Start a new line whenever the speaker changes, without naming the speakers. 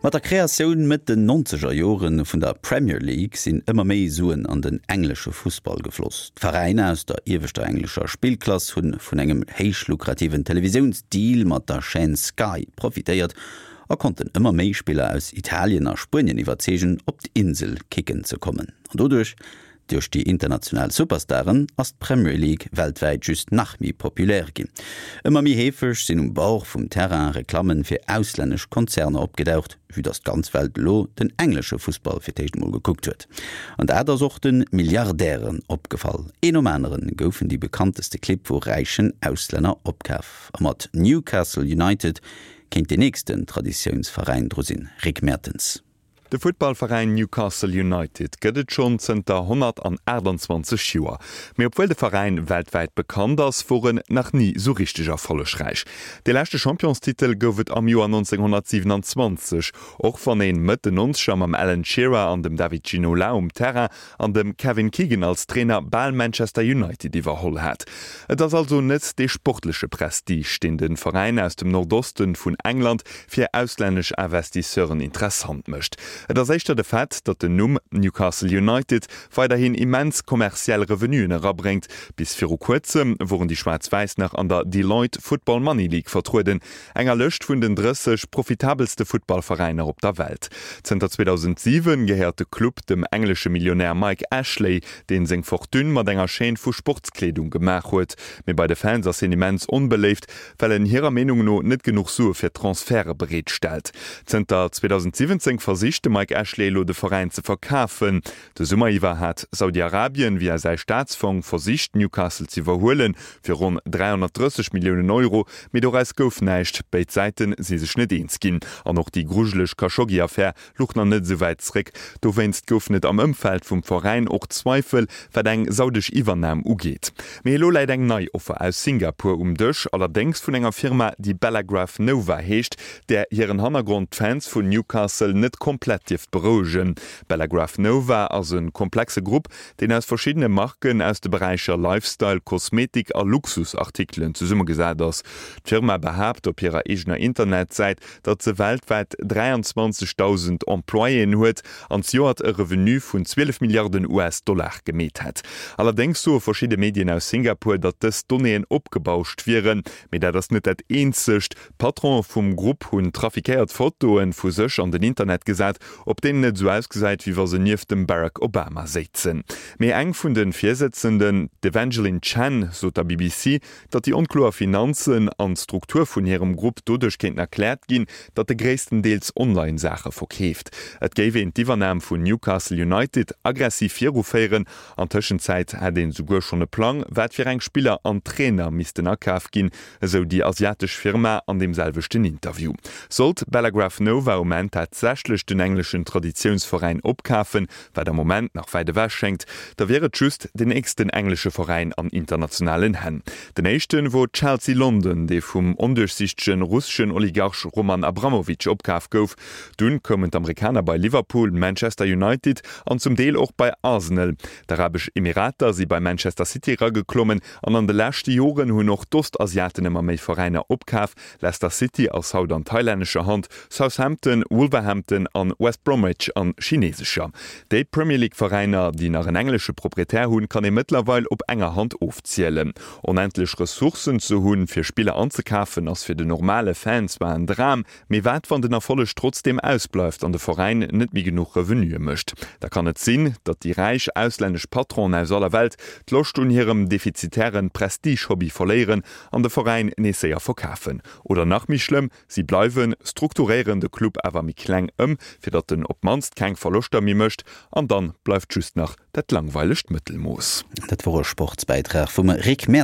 Mat der Kreatioun Mëtt den nonzeger Jore vun der Premier League sinn ëmmer méi Suen an den englesche Fussball gefloss. D'Veräiner aus der ieweschter englescher Spillklass hu vun engem héich lukrativen Televisiounsdeal mat der Chaîne Sky profitéiert a konnten ëmmer méi Spiller aus Italien a Spuenien iwwerzeegen, op d'Insel kicken ze kommen. An doduerch Duerch déi international Superstaren ass d'Premier League weltwäit just nach méi populär ginn. Ëmmer méi heefeg sinn um Bord vum Terrain Reklammen fir auslännesch Konzerner opgedaucht, vue dass d'ganz Welt elo den englesche Fussball fir d'éischt emol gekuckt huet. An dat ass och de Milliardären opgefall. Een nom aneren goufen déi bekannteste Clibb vu räichen Auslänner opkaf. A mat Newcastle United kéint deen nächsten Traditiounsveräin dru sinn. Rick Mertens.
De Futtballveräin Newcastle United gëtt et schonn zënter 128 Joer. Mee obwuel de Veräin weltwäit bekannt ass, wor en nach ni sou richteg erfollegräich. Dee leschte Championstitel gouf et am Joer 1927, och wann een Mëtt den Nonzeger mam Alan Shearer an dem David Ginola um Terrain an dem Kevin Keegan als Trainer bal Manchester United iwwerholl hat. Et ass also net dee sportleche Prestige, deen de Veräin aus dem Nordoste vun England fir auslännesch Investisseuren interessant mécht. Et ass éischter de Fait, datt den Numm Newcastle United weiderhin immens kommerziell Revenuen erabréngt. Bis viru kuerzem woren déi Schwaarz-Wäiss nach an der Deloitte Football Money League vertrueden, enger Lëscht vun den 30 profitabelste Futtballveräiner op der Welt. Zënter 2007 gehéiert de Club dem englesche Millionär Mike Ashley, deen seng Fortune mat enger Chaîne vu Sportskleedung gemaach huet. Mee bei de Fans ass hien immens onbeléift, well en hirer Meenung no net genuch Sue fir Transferte bereet stellt. Zënter 2017 versicht de Mike Ashley elo de Veräin ze verkafen. De Summer iwwer hat Saudi-Arabien via säi Staatsfong versicht Newcastle z'iwwerhuelen, fir ronn 330 Milliounen Euro, mee doraus gouf näischt. Béid Säite si sech net eens ginn an och déi grujeleg Khashoggi-Affär luch nach net esou wäit zréck. Dowéinst goufen et am Ëmfeld vum Veräin och Zweifel, wat eng saudesch Iwwernam ugeet. Mee elo läit eng nei Offer aus Singapur um Dësch, allerdéngs vun enger Firma, déi Bellagraph Nova heescht, där hiren Hannergrond d'Fans vun Newcastle net komplett dierft berouegen. Bellagraph Nova ass e komplexe Grupp, deen aus verschiddene Marken aus de Beräicher Lifestyle, Kosmetik a Luxusartikelen zesummegesat ass. D'Firma behaapt op hirer eegener Internetsäit, datt se weltwäit 23.000 Employéen huet an zejoert e Revenu vun 12 Milliarden US-Dollar gemeet hätt. Allerdéngs soe verschidde Medien aus Singapur, datt dës Donnéeën opgebauscht wieren. Mee dat ass net dat eenzegt. D'Patrone vum Grupp hunn trafiquéiert Fotoe vu sech an den Internet gesat, op deenen et esou ausgesäit, wéi wa se nieft dem Barack Obama séizen. Mee eng vun de Virsëtzenden, d'Evangeline Chen, sot der BBC, datt déi onkloer Finanzen an d'Struktur vun hirem Grupp doduerch kéinten erkläert ginn, datt e gréisstendeels online Saache verkeeft. Et géif een d'Iwwernam vun Newcastle United aggressiv viruféieren. An Tëschenzäit hätt een esouguer schonn e Plang, wat fir eng Spiller an Trainer missten akaf ginn, esou déi asiatesch Firma an deem selwechten Interview. Sollt Bellagraph Nova um Enn tatsächlech den engleschen Traditiounsveräin opkafen, wat am Moment nach wäit ewech schéngt, da wier et just den nächsten englesche Veräin an internationalen Hänn. Den éischte wor Chelsea London, dee vum onduerchsichtege russeschen Oligarch Roman Abramovich opkaf gouf. Dunn koumen d'Amerikaner bei Liverpool, Manchester United an zum Deel och bei Arsenal. D'Arabesch Emirater si bei Manchester City erageklommen An an de leschte Joren hunn och d'Ostasiaten ëmmer méi Veräiner opkaf. Leicester City ass haut an thailännescher Hand, Southampton, Wolverhampton an West Bromwich an chinesescher. Déi Premier League Veräiner, déi nach en englesche Proprietär hunn, kann ee mëttlerweil op enger Hand ofzielen. Onendlech Ressourcen ze hunn, fir Spiller anzekafen, ass fir den normale Fan zwar en Dram, Mee wat wann den Erfolleg trotzdeem ausbleift an de Veräin net méi genuch Revenuë mécht? Da kann et sinn, datt déi räich auslännesch Patronen aus aller Welt d'Loscht un hirem defizitären Prestige-Hobby verléieren an de Veräin nees séier verkafen. Oder nach méi schlëmm, si bleiwen, strukturéieren de Club awer méi kleng ëm, fir datt en op d'mannst keng Verloschter méi mécht, an dann bleift just nach dat langweilegt Mëttelmooss.
Dat wor e Sportsbäitrag vum Rick Mertens.